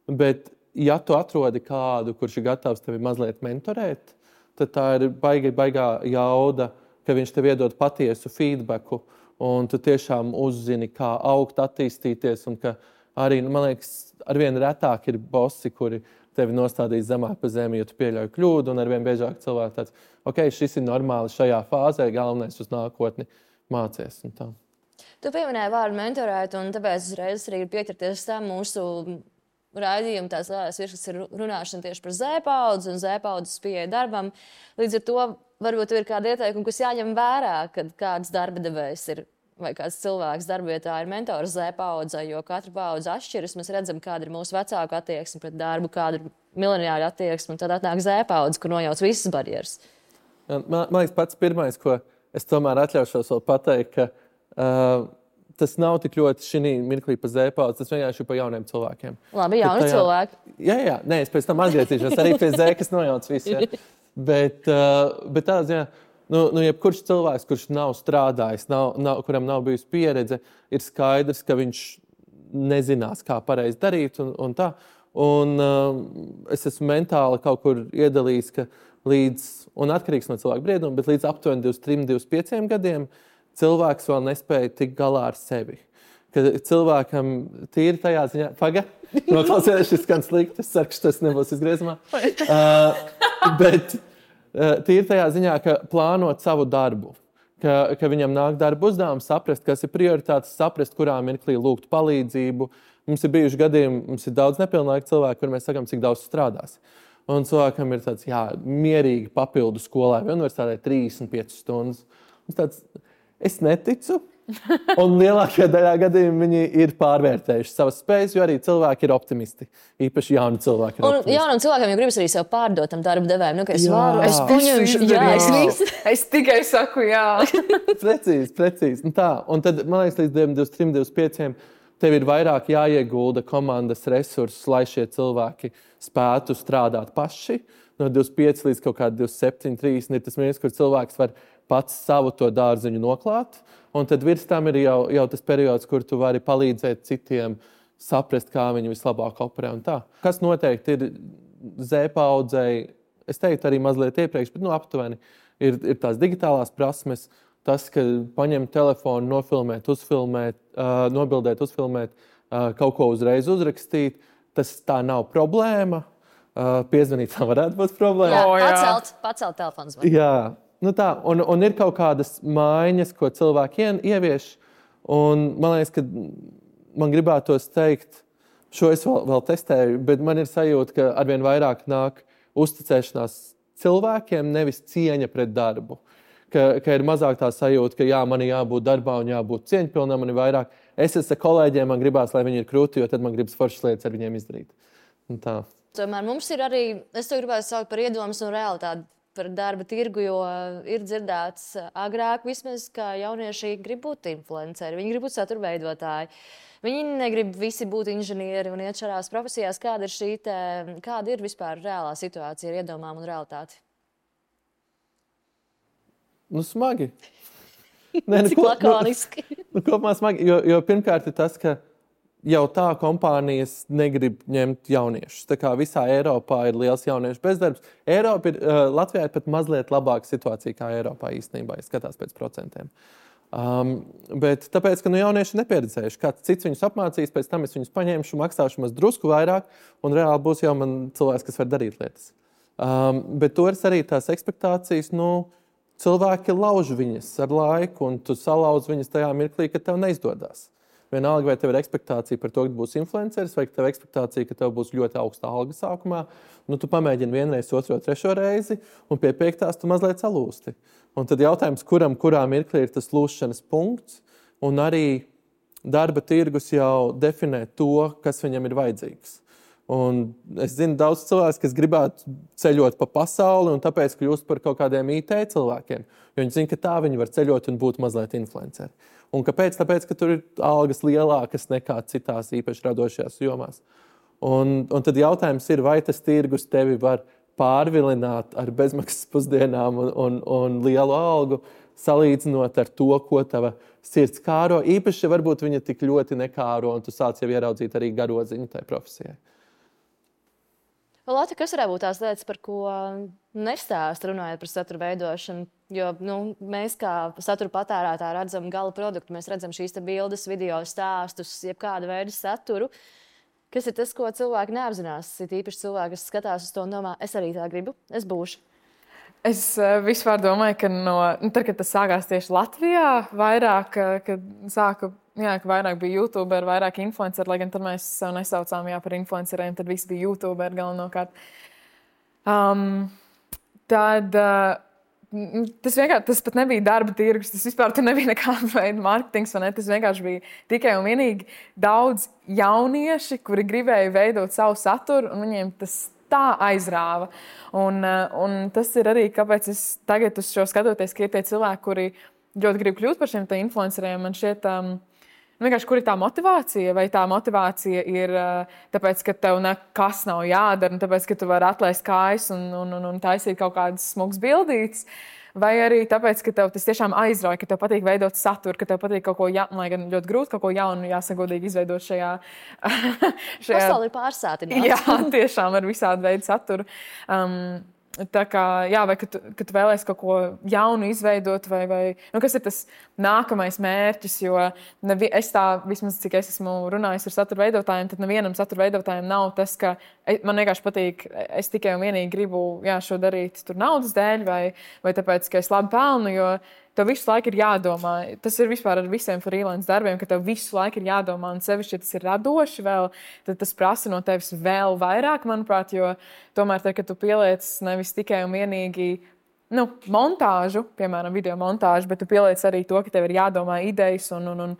bet ja tu atrodi kādu, kurš ir gatavs tevi mazliet mentorēt, tad tā ir baigā jauda, ka viņš tev iedod patiesu feedbacku, un tu tiešām uzzini, kā augt, attīstīties, un ka arī, man liekas, arvien retāk ir bosi, kuri tevi nostādīs zemāk pa zemi, jo tu pieļauj kļūdu, un arvien biežāk cilvēki tāds, ok, šis ir normāli šajā fāzē, galvenais uz nākotni mācies. Un tā. Tu pieminēji vārdu mentorēt, un tāpēc uzreiz arī ir pieķerties tam mūsu raidījuma tās lielās virsmas ir runāšana tieši par Z-paudzi un Z-paudzes pieeja darbam. Līdz ar to varbūt ir kāda ieteikuma, kas jāņem vērā, kad kāds darba devējs ir vai kāds cilvēks darbavietā ir mentors Z-paudzei, jo katra paudze atšķiras. Mēs redzam, kāda ir mūsu vecāku attieksme pret darbu, kāda ir mileniāļu attieksme, un tad atnāk Z-paudze, kur nojauc visas barjeras. Man liekas, pats pirmais, ko es tomēr atļaušos vēl pateikt, ka tas nav tik ļoti šī mirklī pa Z-paudzi, tas vienkārši ir pa jauniem cilvēkiem. Labi, jauni cilvēki. Jā, nē, es pēc tam atgriezīšos arī pie Z, kas nojauc visu. Ja. Bet tāds, jā, jebkurš cilvēks, kurš nav strādājis, kuram nav bijusi pieredze, ir skaidrs, ka viņš nezinās, kā pareizi darīt un tā. Un es esmu mentāli kaut kur iedalījis, ka un atkarīgs no cilvēka brieduma, bet līdz aptuveni 23-25 gadiem cilvēks vēl nespēja tikt galā ar sevi. Kad cilvēkam tīri tajā ziņā... Noklausies, šis skan slikti, es ceru, ka tas nebūs izgriezumā. Bet tīri tajā ziņā, ka plānot savu darbu, ka viņam nāk darba uzdevums, saprast, kas ir prioritātes, saprast, kurā mirklī lūgt palīdzību. Mums ir bijuši gadījumi, mums ir daudz nepilnlaika cilvēku, kur mēs sakam, cik daudz strādās. Un cilvēkam ir tāds, mierīgi papildu skolai vai universitātē 35 stundas. Mums tāds... Es neticu, un lielākajā daļā gadījumā viņi ir pārvērtējuši savas spējas, jo arī cilvēki ir optimisti. Īpaši jauni cilvēki ir optimisti. Un jaunam cilvēkiem jau gribas arī sev pārdot tam darba devējiem. Es varu, es paņemšu, es tikai saku jā. Precīzi. Un tā. Un tad, man liekas, līdz 23-25 tev ir vairāk jāiegulda komandas resursus, lai šie cilvēki spētu strādāt paši. No 25 līdz kaut kāda 27, 30 ir tas mirklis, kur cilvēks var pats savu to dārziņu noklāt, un tad virs tam ir jau tas periods, kur tu vari palīdzēt citiem saprast, kā viņi vislabāk operē un tā. Kas noteikti ir Z-paudzei, es teiktu arī mazliet iepriekš, bet aptuveni ir tās digitālās prasmes, tas, ka paņemt telefonu, nofilmēt, uzfilmēt, nobildēt, uzfilmēt, kaut ko uzreiz uzrakstīt, tas tā nav problēma. Piezvanīt tam varētu būt problēma. Jā, pacelt telefonu zvanu. Jā. Tā, un ir kaut kādas maiņas, ko cilvēki ievieš, un man liekas, ka man gribētos teikt, šo es vēl testēju, bet man ir sajūta, ka arvien vairāk nāk uzticēšanās cilvēkiem, nevis cieņa pret darbu. Ka ir mazāk tā sajūta, ka man ir jābūt darbā un jābūt cieņpilnam, man ir vairāk. Es esmu kolēģiem, man gribās, lai viņi ir krūti, jo tad man gribas foršas lietas ar viņiem izdarīt. Un tā. Tomēr mums ir arī, es to gribētu saukt par iedomas un realitāti par darba tirgu, jo ir dzirdēts agrāk vismaz, ka jaunieši grib būt influenceri, viņi grib būt satura veidotāji. Viņi negrib visi būt inženieri un iet šādās profesijās. Kāda ir vispār reālā situācija ar iedomām un realitāti? Nu, smagi. Cik lakoniski. Kopumā smagi, jo pirmkārt ir tas, ka jau tā kompānijas negrib ņemt jauniešus. Tā kā visā Eiropā ir liels jauniešu bezdarbs. Latvijā ir pat mazliet labāka situācija kā Eiropā īstenībā, ja skatās pēc procentiem. Bet tāpēc, ka jaunieši ir nepieredzējuši, kāds cits viņus apmācīs, pēc tam es viņus paņemšu, maksāšu maz drusku vairāk, un reāli būs jau man cilvēks, kas var darīt lietas. Bet toreiz arī tās ekspektācijas, cilvēki lauž viņas ar laiku, un tu salauz viņas tajā mirklī, ka tev neizdodas. Vienalga, vai tev ir ekspektācija par to, ka būs influenceris, vai tev ir ekspektācija, ka tev būs ļoti augsta alga sākumā. Tu pamēģini vienreiz, otro, trešo reizi, un pie 5. tu mazliet salūsti. Un tad jautājums, kurā mirklī ir tas lūšanas punkts, un arī darba tirgus jau definē to, kas viņam ir vajadzīgs. Un es zinu daudz cilvēku, kas gribētu ceļot pa pasauli, un tāpēc kļūst par kaut kādiem IT cilvēkiem. Jo viņi zina, ka tā viņi var ceļot un būt mazliet influenceri. Un kāpēc? Tāpēc, ka tur ir algas lielākas nekā citās īpaši radošajās jomās. Un tad jautājums ir, vai tas tirgus tevi var pārvilināt ar bezmaksas pusdienām un lielu algu, salīdzinot ar to, ko tava sirds kāro. Īpaši, varbūt viņa tik ļoti nekāro, un tu sāc jau ieraudzīt arī garoziņu tai profesijai. Lata, kas varētu būt tās lietas, par ko nestāst runājot par satura veidošanu? Jo mēs kā satura patērētāji redzam gala produktu, mēs redzam šīs bildes, video stāstus, jebkāda veida saturu. Kas ir tas, ko cilvēki neapzinās? Ir īpaši cilvēki, kas skatās uz to un domā, es arī tā gribu, es būšu. Es vispār domāju, ka tad, kad tas sākās tieši Latvijā, vairāk, ka vairāk bija YouTuberi, vairāk influenceri, lai gan tad mēs sev nesaucām par influenceriem, tad visi bija YouTuberi galvenokārt. Tas pat nebija darba tirgus, tas vispār nebija nekāda veida mārketings, vai ne? Tas vienkārši bija tikai un vienīgi daudz jaunieši, kuri gribēja veidot savu saturu, un viņiem tas tā aizrāva. Un tas ir arī, kāpēc es tagad uz šo skatoties, ka ir tie cilvēki, kuri ļoti grib kļūt par šiem influenceriem. Man šķiet, vienkārši, kur ir tā motivācija? Vai tā motivācija ir tāpēc, ka tev nekas nav jādara, un tāpēc, ka tu vari atlaist kājas un taisīt kaut kādas smugas bildītes? Vai arī tāpēc, ka tev tas tiešām aizrauja, ka tev patīk veidot saturu, ka tev patīk kaut ko jaunu, lai gan ļoti grūti kaut ko jaunu, jāsagodīgi izveidot šajā... Pasauli ir pārsātināta. Jā, tiešām ar visādu veidu saturu. Tā kā, vai kad tu vēlēsi kaut ko jaunu izveidot, vai kas ir tas nākamais mērķis, jo es tā, vismaz cik es esmu runājis ar satura veidotājiem, tad nevienam satura veidotājiem nav tas, ka man vienkārši patīk, es tikai un vienīgi gribu šo darīt tur naudas dēļ, vai tāpēc, ka es labi pelnu, jo tev visu laiku ir jādomā. Tas ir vispār ar visiem freelance darbiem, ka tev visu laiku ir jādomā, un sevišķi, ja tas ir radoši vēl, tad tas prasa no tevis vēl vairāk, manuprāt, jo tomēr, kad tu pieliec nevis tikai un vienīgi montāžu, piemēram, video montāžu, bet tu pieliec arī to, ka tev ir jādomā idejas un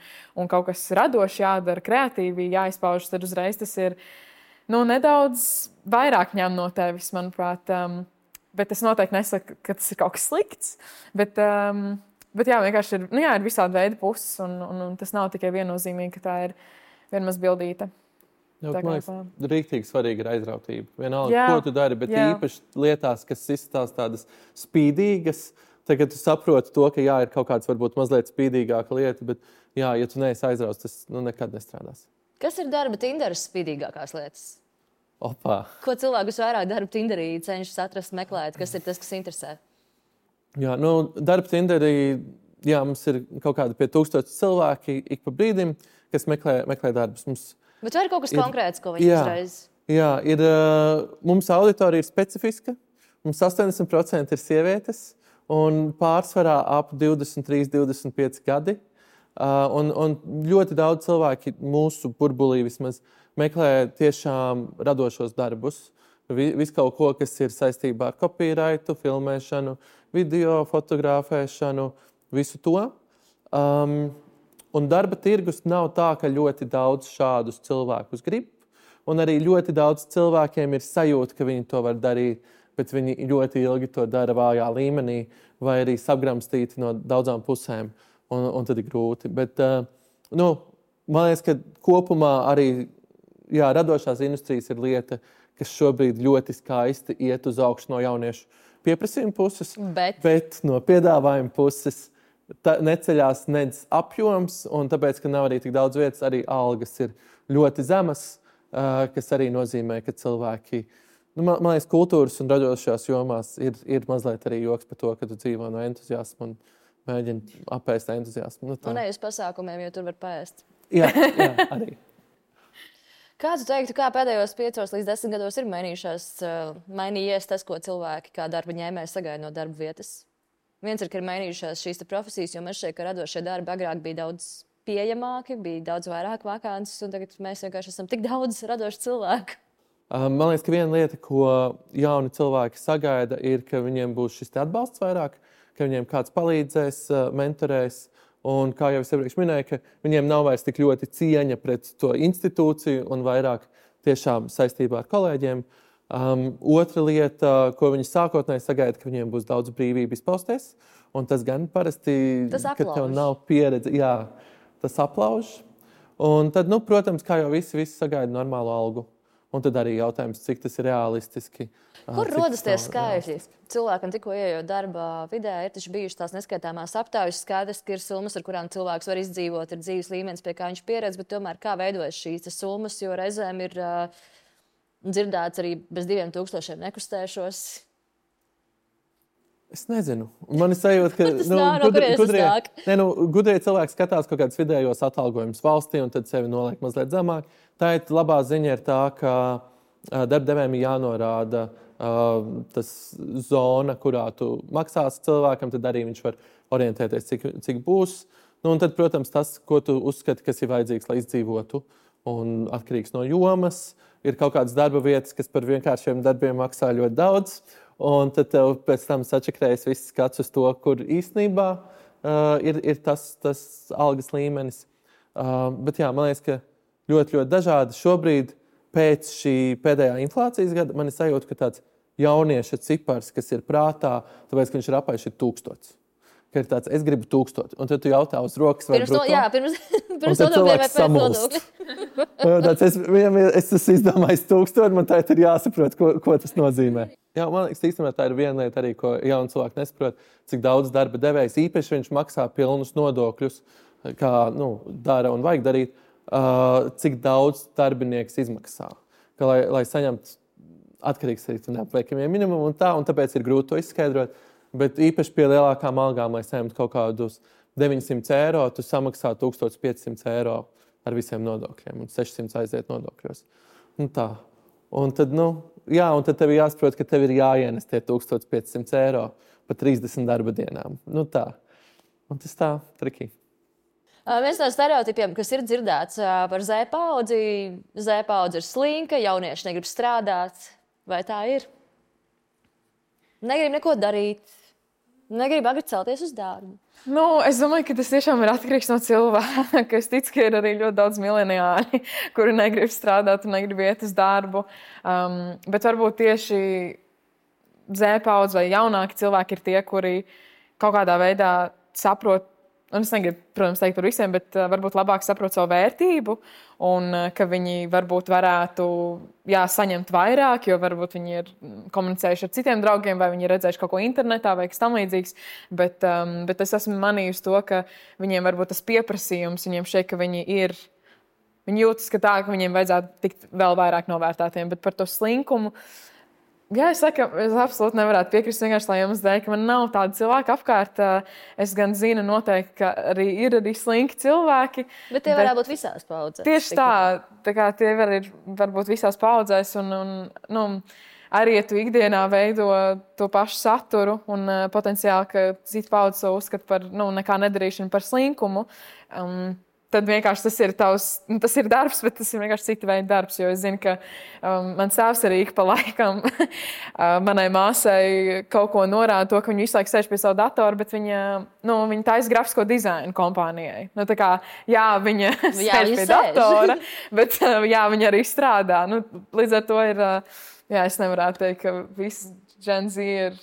kaut kas radoši jādara, kreatīvi jāizpaužas, tad uzreiz tas ir nedaudz vairāk ņem no tevis, manuprāt. Bet es noteikti nesaku, ka tas ir kaut kas slikts, bet vienkārši ir visādi veidi puses, un tas nav tikai viennozīmīgi, ka tā ir viena maz bildīte. Man liekas, rīktīgi svarīgi ir aizrautība. Vienalga, ko tu dari, bet īpaši lietās, kas izstās tādas spīdīgas, tagad tu saproti to, ka ir kaut kāds varbūt mazliet spīdīgāka lieta, bet ja tu neesi aizrauts, tas nekad nestrādās. Kas ir darba Tinderas spīdīgākās lietas? Opā. Ko cilvēkus vairāk darba Tinderī cenšas atrast, meklēt, kas ir tas, kas interesē? Jā, darba Tinderī, mums ir kaut kādi pie 1000 cilvēki ik pa brīdim, kas meklē darbus. Bet vai ir kaut kas konkrēts, ko viņi uzreiz? Jā, mums auditorija ir specifiska, mums 80% ir sievietes, un pārsvarā ap 23, 25 gadi. Un ļoti daudz cilvēki mūsu burbulī vismaz meklē tiešām radošos darbus. Visu kaut ko, kas ir saistībā ar copyrightu, filmēšanu, video, fotografēšanu, visu to. Un darba tirgus nav tā, ka ļoti daudz šādus cilvēkus grib. Un arī ļoti daudz cilvēkiem ir sajūta, ka viņi to var darīt bet viņi ļoti ilgi to dara vājā līmenī vai arī sabramstīti no daudzām pusēm, un tad ir grūti. Bet, man liekas, ka kopumā arī radošās industrijas ir lieta, kas šobrīd ļoti skaisti iet uz augšu no jauniešu pieprasījuma puses, bet no piedāvājuma puses neceļās nedz apjoms, un tāpēc, ka nav arī tik daudz vietas, arī algas ir ļoti zemas, kas arī nozīmē, ka cilvēki, man liekas, kultūras un radošajās jomās ir mazliet arī joks par to, ka tu dzīvo no entuziasma un mēģini apēst entuziasmu. Un ne uz pasākumiem, jo tur var paēst. Jā, arī. Kā tu teiktu, kā pēdējos 5 līdz 10 gados ir mainījies tas, ko cilvēki kā darba ņēmēji sagaida no darba vietas? Viens ir, ka ir mainījušās šīs profesijas, jo man šķiet, ka radošie darbi agrāk bija daudz pieejamāki, bija daudz vairāk vakances, un tagad mēs vienkārši esam tik daudz radošu cilvēku. Man liekas, ka viena lieta, ko jauni cilvēki sagaida, ir, ka viņiem būs šis atbalsts vairāk, ka viņiem kāds palīdzēs, mentorēs. Un, kā jau es iepriekš minēju, ka viņiem nav vairs tik ļoti cieņa pret to institūciju un vairāk tiešām saistībā ar kolēģiem. Otra lieta, ko viņi sākotnēji sagaida, ka viņiem būs daudz brīvību izpausties. Un tas gan parasti, ka tev nav pieredze. Jā, tas aplauž. Un tad, protams, kā jau visi sagaida normālu algu. Un tad arī jautājums, cik tas ir realistiski. Kur rodas tie skaitļi? Cilvēkam tikko ieejot darba vidē, ir taču bijušas tās neskaitāmās aptaujas, skaidrs, ka ir summas, ar kurām cilvēks var izdzīvot, ir dzīves līmenis, pie kā viņš pieredz, bet tomēr kā veidojas šīs summas, jo reizēm ir dzirdēts arī bez 2000 nekustēšos. Es nezinu. Man ir sajūta, ka gudrie cilvēki skatās kaut kādus vidējos atalgojumus valstī un tad sevi noliek mazliet zemāk. Tā ir labā ziņa ir tā, ka darbdevējiem ir jānorāda tas zona, kurā tu maksāsi cilvēkam, tad arī viņš var orientēties, cik būs. Un tad, protams, tas, ko tu uzskati, kas ir vajadzīgs, lai izdzīvotu un atkarīgs no jomas. Ir kaut kādas darba vietas, kas par vienkāršiem darbiem maksā ļoti daudz. Un tad tev pēc tam sačakrējas viss skats uz to, kur īstenībā ir tas algas līmenis. Bet jā, man liekas, ka ļoti dažādi. Šobrīd pēc šī pēdējā inflācijas gada man ir sajūta, ka tāds jaunieša cipars, kas ir prātā, tāpēc, ka viņš ir apaiši 1000. Ka ir tāds, es gribu 1000. Un tad tu jautā uz rokas vai bruto. Pirms nodokļiem vai pēc nodokļiem. Es esmu izdomājis 1000, man tā ir jāsaprot, ko tas nozīmē. Jā, man liekas, īstenībā tā ir viena lieta arī, ko jauni cilvēki nesaprot, cik daudz darba devējs īpaši viņš maksā pilnus nodokļus, kā dara un vajag darīt, cik daudz darbinieks izmaksā. Ka, lai saņemtu atkarīgs arī no neapliekamiem minimumu un tāpēc ir grūti to izskaidrot. Bet īpaši pie lielākām algām, lai saņemtu kaut kādus 900 eiro, tu samaksā 1500 eiro ar visiem nodokļiem un 600 aiziet nodokļos. Tā. Un tad, un tad tev jāsaprot, ka tev ir jāienes tie 1500 eiro pa 30 darba dienām. Tā. Un tas tā triki. Viens no stereotipiem, kas ir dzirdēts par Z-paudzi, Z-paudze ir slinka, jaunieši negrib strādāt. Vai tā ir? Negrib neko darīt. Negrib agri celties uz darbu. Es domāju, ka tas tiešām ir atkarīgs no cilvēka. Es ticu, ka ir arī ļoti daudz mileniāļi, kuri negrib strādāt un negrib iet uz darbu. Bet varbūt tieši Z-paudze vai jaunāki cilvēki ir tie, kuri kaut kādā veidā saprot, un es negribu, protams, teikt par visiem, bet varbūt labāk saprot savu vērtību un ka viņi varbūt varētu saņemt vairāk, jo varbūt viņi ir komunicējuši ar citiem draugiem vai viņi ir redzējuši kaut ko internetā vai kas tam līdzīgs. Bet es esmu manījusi to, ka viņiem varbūt tas pieprasījums, viņiem šeit, ka viņi jūtas, ka viņiem vajadzētu tikt vēl vairāk novērtētiem, bet par to slinkumu. Jā, es absolūti nevarētu piekrist vienkārši, lai jums dēļ, ka man nav tāda cilvēka apkārt. Es gan zinu noteikti, ka ir arī slinki cilvēki. Bet tie varētu būt visās paudzēs. Tieši tā kā tie var būt visās paudzēs un arī, ja tu ikdienā veido to pašu saturu un potenciāli, ka cita paudze to uzskata par nekā nedarīšanu par slinkumu, tad vienkārši tas ir darbs, bet tas ir vienkārši cita veida darbs, jo es zinu, ka mans tēvs arī ik pa laikam manai māsai kaut ko norāda to, ka viņa visu laiku sēž pie savu datoru, bet viņa taisa grafisko dizainu kompānijai. Viņa sēž pie datora, bet viņa arī strādā. Līdz ar to ir, es nevarētu teikt, ka Gen Z ir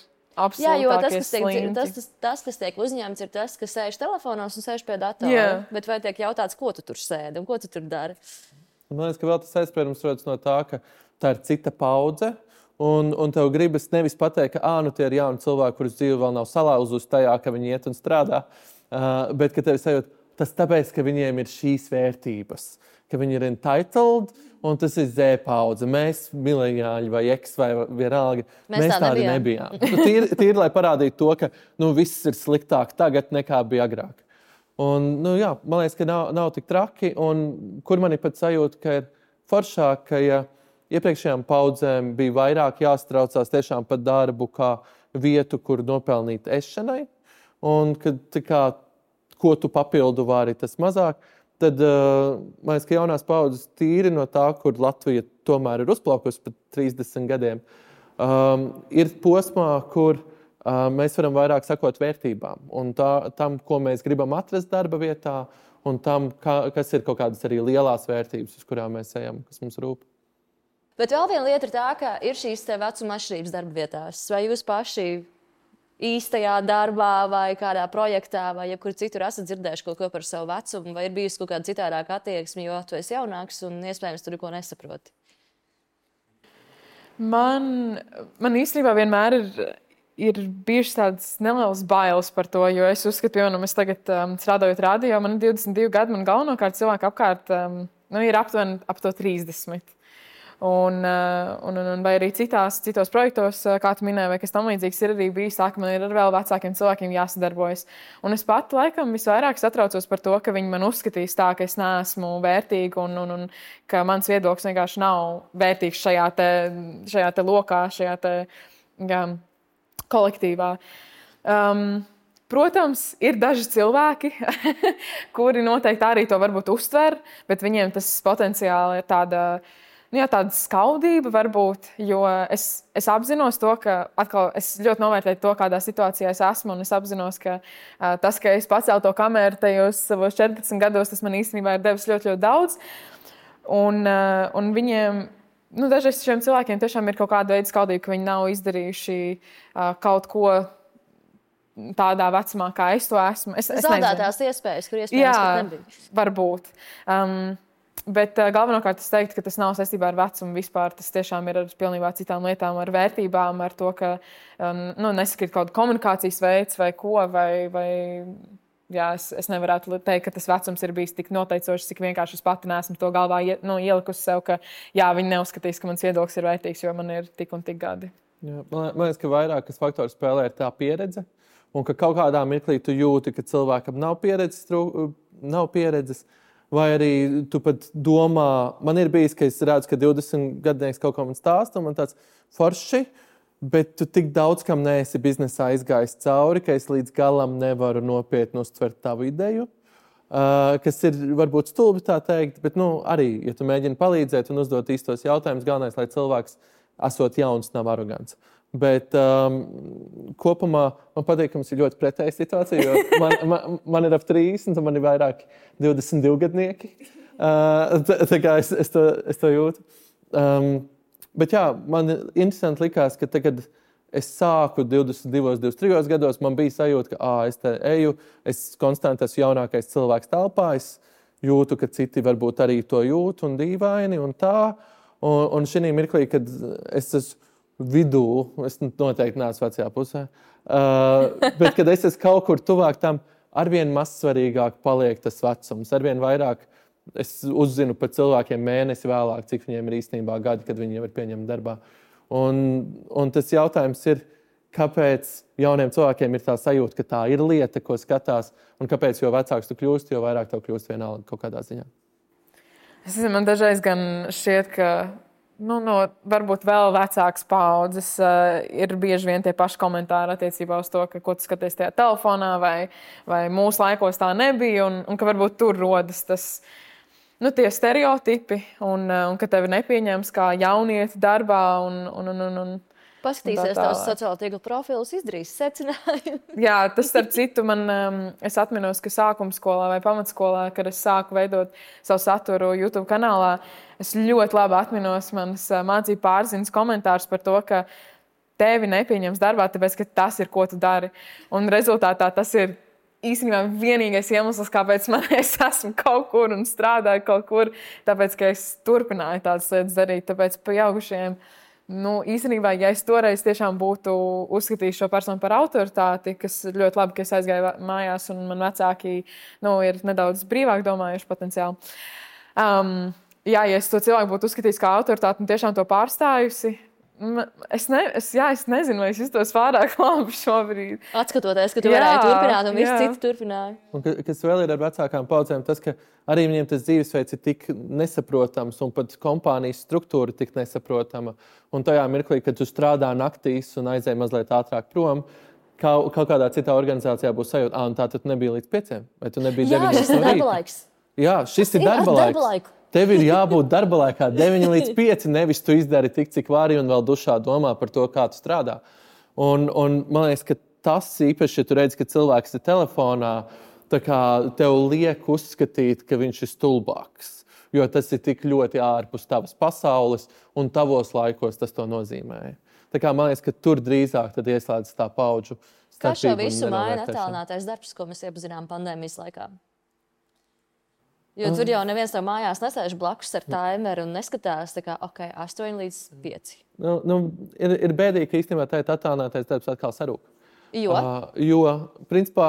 Jā, jo absolūtākie tas, kas tiek uzņemts, ir tas, kas sēž telefonos un sēž pie datora. Bet vai tiek jautāts, ko tu tur sēdi un ko tu tur dari? Man liekas, ka vēl tas aizspriedums rodas no tā, ka tā ir cita paudze. Un tev gribas nevis pateikt, ka tie ir jauni cilvēki, kurus dzīve vēl nav salauzusi tajā, ka viņi iet un strādā, bet ka tev sajūt, tas tāpēc, ka viņiem ir šīs vērtības, ka viņi ir entitled, un tas ir Z paudze. Mēs, mileniāļi vai X vai vienalga, mēs tādi nebijām. Tīri, lai parādītu to, ka viss ir sliktāk tagad nekā bija agrāk. Un, man liekas, ka nav tik traki, un kur man ir pat sajūta, ka ir foršāk, ka iepriekšējām paudzēm bija vairāk jāstraucās tiešām par darbu kā vietu, kur nopelnīt ešanai, un kad ko tu papildu vari, tas mazāk. Tad, man liekas, ka jaunās paudzes tīri no tā, kur Latvija tomēr ir uzplaukusi pat 30 gadiem, ir posmā, kur mēs varam vairāk sakot vērtībām un tam, ko mēs gribam atrast darba vietā, un tam, kas ir kaut kādas arī lielās vērtības, uz kurām mēs ejam, kas mums rūp. Bet vēl viena lieta ir tā, ka ir šīs vecuma atšķirības darba vietās. Vai jūs paši īstajā darbā vai kādā projektā vai jebkur citur esat dzirdējuši kaut ko par savu vecumu, vai ir bijusi kaut kāda citādāka attieksme, jo tu esi jaunāks un iespējams tur neko nesaproti? Man īstenībā vienmēr ir bijušas tādas nelielas bailes par to, jo es uzskatu, es tagad strādājot radio, man ir 22 gadi, man galvenokārt cilvēki apkārt ir aptuveni ap to 30. Un vai arī citos projektos, kā tu minēji, vai kas tam līdzīgs, ir arī bijis tā, ka man ir ar vēl vecākiem cilvēkiem jāsadarbojas. Un es pat laikam visvairāk satraucos par to, ka viņi man uzskatīs tā, ka es neesmu vērtīga un ka mans viedoklis vienkārši nav vērtīgs šajā te lokā, šajā te kolektīvā. Protams, ir daži cilvēki, kuri noteikti arī to varbūt uztver, bet viņiem tas potenciāli ir tāda skaudība varbūt, jo es apzinos to, ka atkal es ļoti novērtēju to, kādā situācijā es esmu, un es apzinos, ka tas, ka es pacēlu to kameru tajos savos 14 gados, tas man īstenībā ir devis ļoti, ļoti daudz. Un viņiem, dažreiz šiem cilvēkiem tiešām ir kaut kāda veida skaudība, ka viņi nav izdarījuši kaut ko tādā vecumā, kā es to esmu. Zaudētās iespējas, kur iespējams pat nebija. Varbūt. Bet galvenokārt es teiktu, ka tas nav saistībā ar vecumu vispār. Tas tiešām ir ar pilnībā citām lietām, ar vērtībām, ar to, ka nesakrīt kaut kāda komunikācijas veids vai ko, es nevarētu teikt, ka tas vecums ir bijis tik noteicošs, cik vienkārši es pati neesmu to galvā ielikusi sev, ka viņi neuzskatīs, ka mans viedoklis ir vērtīgs, jo man ir tik un tik gadi. Jā, man liekas, ka vairākas faktori spēlē ir tā pieredze, un ka kaut kādā mirklī tu jūti, ka cilvēkam nav pieredzes, vai arī tu pat domā, man ir bijis, ka es redzu, ka 20 gadnieks kaut ko man stāsta, un man tāds forši, bet tu tik daudz, kam neesi biznesā izgājis cauri, ka es līdz galam nevaru nopietni uztvert tavu ideju, kas ir varbūt stulbi tā teikt, bet arī, ja tu mēģini palīdzēt un uzdot īstos jautājumus, galvenais, lai cilvēks esot jauns, nav arogants. Bet kopumā man patīk, ka mums ir ļoti pretēja situācija, jo man ir ap 30, un man ir vairāk 22 gadnieki. Tā kā es to jūtu. Bet jā, man interesanti likās, ka tagad es sāku 22, 23 gados, man bija sajūta, ka es te eju, es konstanti esmu jaunākais cilvēks telpā, es jūtu, ka citi varbūt arī to jūt un dīvaini un tā. Un šī mirklī, kad es esmu vidū, es noteikti neesmu vecajā pusē, bet kad es esmu kaut kur tuvāk tam, arvien mazsvarīgāk paliek tas vecums, arvien vairāk es uzzinu par cilvēkiem mēnesi vēlāk, cik viņiem ir īstenībā gadi, kad viņi jau ir pieņemti darbā. Un tas jautājums ir, kāpēc jauniem cilvēkiem ir tā sajūta, ka tā ir lieta, ko skatās, un kāpēc jo vecāks tu kļūsti, jo vairāk tev kļūst vienalga kaut kādā ziņā. Man dažreiz gan šķiet, ka varbūt vēl vecākas paudzes ir bieži vien tie paši komentāri attiecībā uz to, ka ko tu skaties tajā telefonā vai mūsu laikos tā nebija un ka varbūt tur rodas tas, tie stereotipi un ka tevi nepieņems kā jaunieti darbā un paskatīsies tavs sociālo tīklu profilus, izdarīs secinājumu. Jā, tas starp citu es atminos, ka sākumskolā vai pamatskolā, kad es sāku veidot savu saturu YouTube kanālā, es ļoti labi atminos manas mācību pārziņas komentārus par to, ka tevi nepieņems darbā, tāpēc, ka tas ir, ko tu dari. Un rezultātā tas ir īstenībā vienīgais iemesls, kāpēc es esmu kaut kur un strādāju kaut kur, tāpēc, ka es turpināju tādas lietas darīt. Tāpēc pieaugušajiem, īstenībā, ja es toreiz tiešām būtu uzskatījis šo personu par autoritāti, kas ļoti labi, ka es aizgāju mājās un man vecāki ir nedaudz brīvāk domājuši potenciāli. Ja es to cilvēku būtu uzskatījis kā autoritāti un tiešām to pārstājusi, es nezinu, vai es justos pārāk labi šobrīd. Atskatoties, ka tu varēji turpināt un visi citi turpināja. Un kas vēl ir ar vecākām paudzēm, tas, ka arī viņiem tas dzīvesveids ir tik nesaprotams un pat kompānijas struktūra tik nesaprotama. Un tajā mirklī, kad tu strādā naktīs un aizēji mazliet ātrāk prom, kaut kādā citā organizācijā būs sajūta, un tā tu nebija līdz 5, vai tu nebija 9 šis ir darba laiks. Jā, šis ir darba laiks. Tev ir jābūt darba laikā 9 līdz 5, nevis tu izdari tik, cik vari un vēl dušā domā par to, kā tu strādā. Un man liekas, ka tas īpaši, ja tu redzi, ka cilvēks ir telefonā, tā kā tev liek uzskatīt, ka viņš ir stulbāks. Jo tas ir tik ļoti ārpus tavas pasaules un tavos laikos tas to nozīmē. Tā kā man liekas, ka tur drīzāk tad ieslēdz tā paudžu starpību. Kā šo visu maina attālinātais darbs, ko mēs iepazinām pandēmijas laikā? Jo tur jau neviens tev mājās nesēž blakus ar timeru un neskatās, tā kā, 8 līdz 5. Ir bēdīgi, ka īstenībā tā attālinātais darbs atkal sarūk. Jo, principā,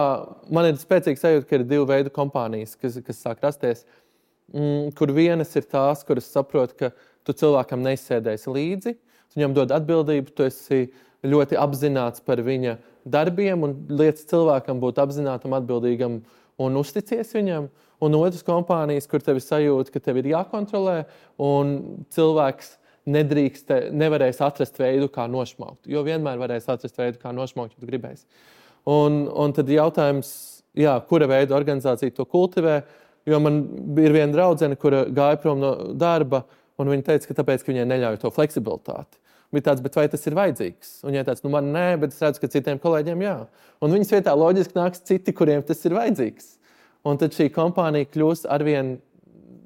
man ir spēcīgs sajūta, ka ir 2 veidu kompānijas, kas sāk rasties, kur vienas ir tās, kuras saprot, ka tu cilvēkam neizsēdēsi līdzi, tu viņam dod atbildību, tu esi ļoti apzināts par viņa darbiem un lietas cilvēkam būt apzinātam, atbildīgam un uzticies viņam. Un otras kompānijas, kur tev ir sajūta, ka tev ir jākontrolē, un cilvēks nevarēs atrast veidu, kā nošmaukt. Jo vienmēr varēs atrast veidu, kā nošmaukt, ja tu gribēsi. Un tad jautājums, kura veida organizācija to kultivē, jo man ir viena draudzene, kura gāja prom no darba, un viņa teica, ka tāpēc, ka viņai neļauj to fleksibilitāti. Bija tāds, bet vai tas ir vajadzīgs? Un viņai tāds, man nē, bet es redzu, ka citiem kolēģiem jā. Un viņas vietā loģiski nāks citi, kuriem tas ir vajadzīgs. Un tad šī kompānija kļūs arvien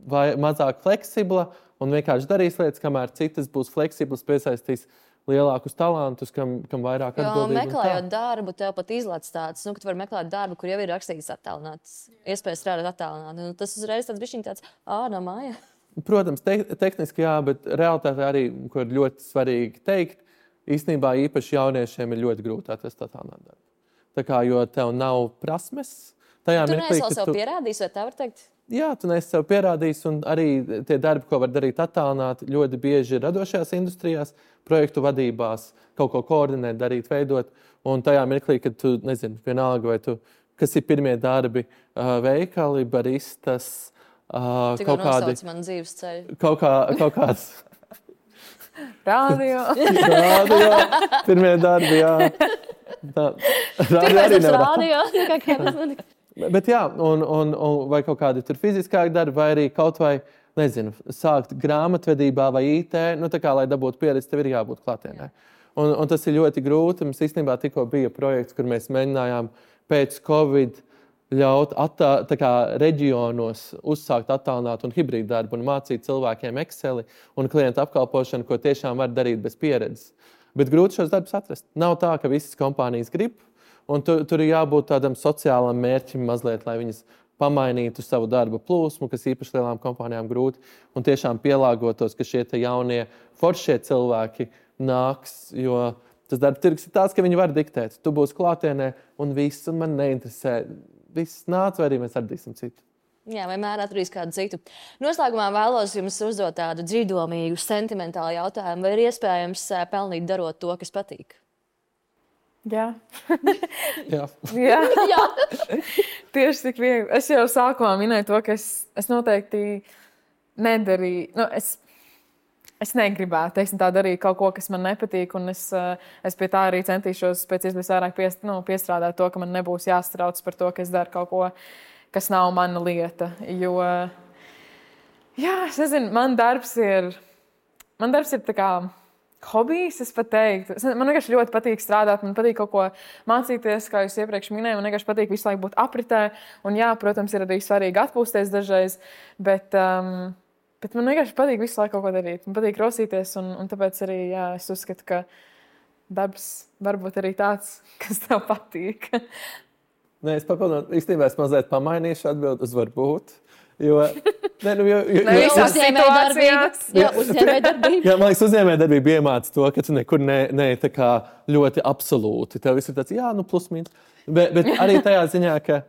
mazāk fleksibla un vienkārši darīs lietas, kamēr citas būs fleksiblas, piesaistīs lielākus talantus, kam vairāk atbildību. Jo meklējot darbu, tev pat izlaiž tāds, ka tu vari meklēt darbu, kur jau ir rakstīts attālināts, iespējas strādāt attālināti. Tas uzreiz tāds bišķiņ tāds, no māja. Protams, tehniski jā, bet realitāte arī, ko ir ļoti svarīgi teikt, īstenībā īpaši jauniešiem ir ļoti grūti atrast attālinātu darbu. Tā kā, jo tev nav prasmes, Tu neesi vēl sev pierādījis, vai tā var teikt? Jā, tu neesi sev pierādījis, un arī tie darbi, ko var darīt attālināti, ļoti bieži ir radošajās industrijās, projektu vadībās, kaut ko koordinēt, darīt, veidot. Un tajā mirklī, kad tu, vienalga, vai tu, kas ir pirmie darbi, veikali, baristas, kaut kādi... Tikko man dzīves ceļu. Kaut kāds... Radio. Pirmie darbi, jā. Radio. Bet jā, un vai kaut kādi tur fiziskāki darbi, vai arī kaut vai, sākt grāmatvedībā vai IT, tā kā, lai dabūtu pieredzi, tev ir jābūt klātienē. Un tas ir ļoti grūti. Mums īstenībā tikko bija projekts, kur mēs mēģinājām pēc Covid ļaut reģionos uzsākt attālinātu un hibrīdu darbu un mācīt cilvēkiem Exceli un klientu apkalpošanu, ko tiešām var darīt bez pieredzes. Bet grūti šos darbus atrast. Nav tā, ka visas kompānijas grib, un tur ir jābūt tādam sociālam mērķim mazliet, lai viņas pamainītu savu darba plūsmu, kas īpaši lielām kompānijām grūti, un tiešām pielāgotos, ka šie jaunie foršie cilvēki nāks, jo tas darba tirgus ir tāds, ka viņi var diktēt. Tu būsi klātienē, un viss, un man neinteresē. Viss nāc, vai arī mēs atradīsim citu. Jā, vienmēr atradīs kādu citu. Noslēgumā vēlos jums uzdot tādu dziļdomīgu, sentimentālu jautājumu, vai ir iespējams pelnīt darot to, kas patīk? Jā. Jā. Jā. Tieši tik viegli. Es jau sākumā minēju to, ka es noteikti nedarīju. Es negribētu, tā darīt kaut ko, kas man nepatīk, un es pie tā arī centīšos pēc iespējas vairāk piestrādāt to, ka man nebūs jāstrauc par to, ka es daru kaut ko, kas nav mana lieta. Jo, jā, es nezinu, man darbs ir tā kā hobijs, es pat teiktu. Man vienkārši ļoti patīk strādāt, man patīk kaut ko mācīties, kā jūs iepriekš minēju, man vienkārši patīk visu laiku būt apritē, un jā, protams, ir arī svarīgi atpūsties dažreiz, bet man vienkārši patīk visu laiku kaut ko darīt. Man patīk rosīties, un tāpēc arī, jā, es uzskatu, ka darbs varbūt arī tāds, kas tev patīk. Nē, es papildinātu, īstenībā es mazliet pamainīšu atbildi uz varbūt. Jo, visās situācijās. Uzņēmējdarbība. Jā, man liekas, uzņēmējdarbība iemāca to, ka tu nekur ne tā kā ļoti absolūti. Tev viss ir tāds, plus mīnus. Bet arī tajā ziņā, ka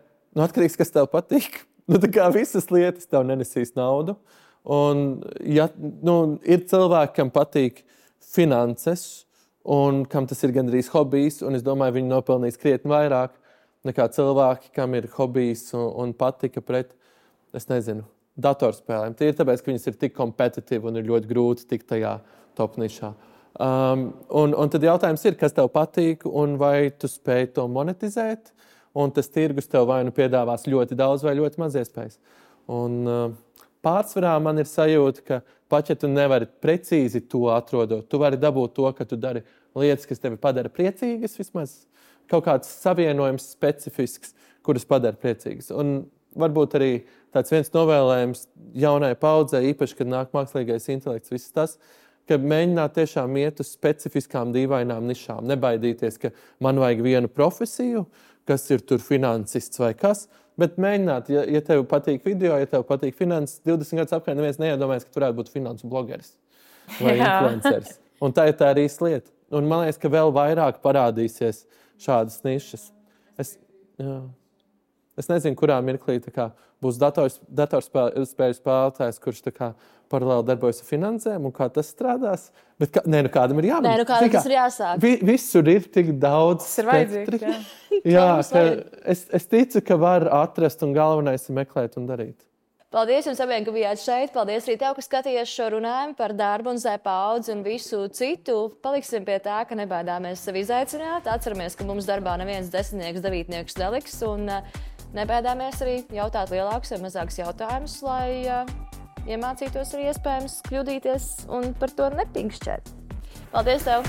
atkarīgs, kas tev patīk. Tā kā visas lietas tev nenesīs naudu. Un ir cilvēki, kam patīk finanses un kam tas ir gandrīz hobijs. Un es domāju, viņi nopelnīs krietni vairāk nekā cilvēki, kam ir hobijs un patika pret, es nezinu, datorspēlēm. Tie ir tāpēc, ka viņas ir tik kompetitīvi un ir ļoti grūti tikt tajā top nišā. Un tad jautājums ir, kas tev patīk un vai tu spēj to monetizēt, un tas tirgus tev vai nu piedāvās ļoti daudz vai ļoti maz iespējas. Un pārsvarā man ir sajūta, ka pat ja tu nevari precīzi to atrodot, tu vari dabūt to, ka tu dari lietas, kas tevi padara priecīgas, vismaz kaut kāds savienojums specifisks, kuras padara priecīgas. Un varbūt arī tāds viens novēlējums jaunai paudzei, īpaši, kad nāk mākslīgais intelekts, viss tas, ka mēģināt tiešām iet uz specifiskām dīvainām nišām. Nebaidīties, ka man vajag vienu profesiju, kas ir tur finansists vai kas, bet mēģināt, ja tev patīk video, ja tev patīk finanses, 20 gadus apkārt neviens neiedomājas, ka tu varētu būt finansu blogeris vai influenceris. Un tā ir tā arī lieta. Un man liekas, ka vēl vairāk parādīsies šādas nišas. Es nezinu, kurā mirklī būs datorspēļu spēlētājs, kurš paralēli darbojas ar finansēm un kā tas strādās. Bet kādam ir jābūt. Kādam tas ir jāsāk. Visur ir tik daudz. Tas ir vajadzīgs. Jā, es ticu, ka var atrast un galvenais ir meklēt un darīt. Paldies jums abiem, ka bijāt šeit. Paldies arī tev, ka skatījies šo runājumu par darbu un Z paudzi un visu citu. Paliksim pie tā, ka nebaidāmies sevi izaicināt. Atceramies, ka mums darbā neviens 10, 9 neliks un nebaidāmies arī jautāt lielākus vai mazākus jautājumus, lai iemācītos arī iespējams kļūdīties un par to nepinkšķēt. Paldies tev!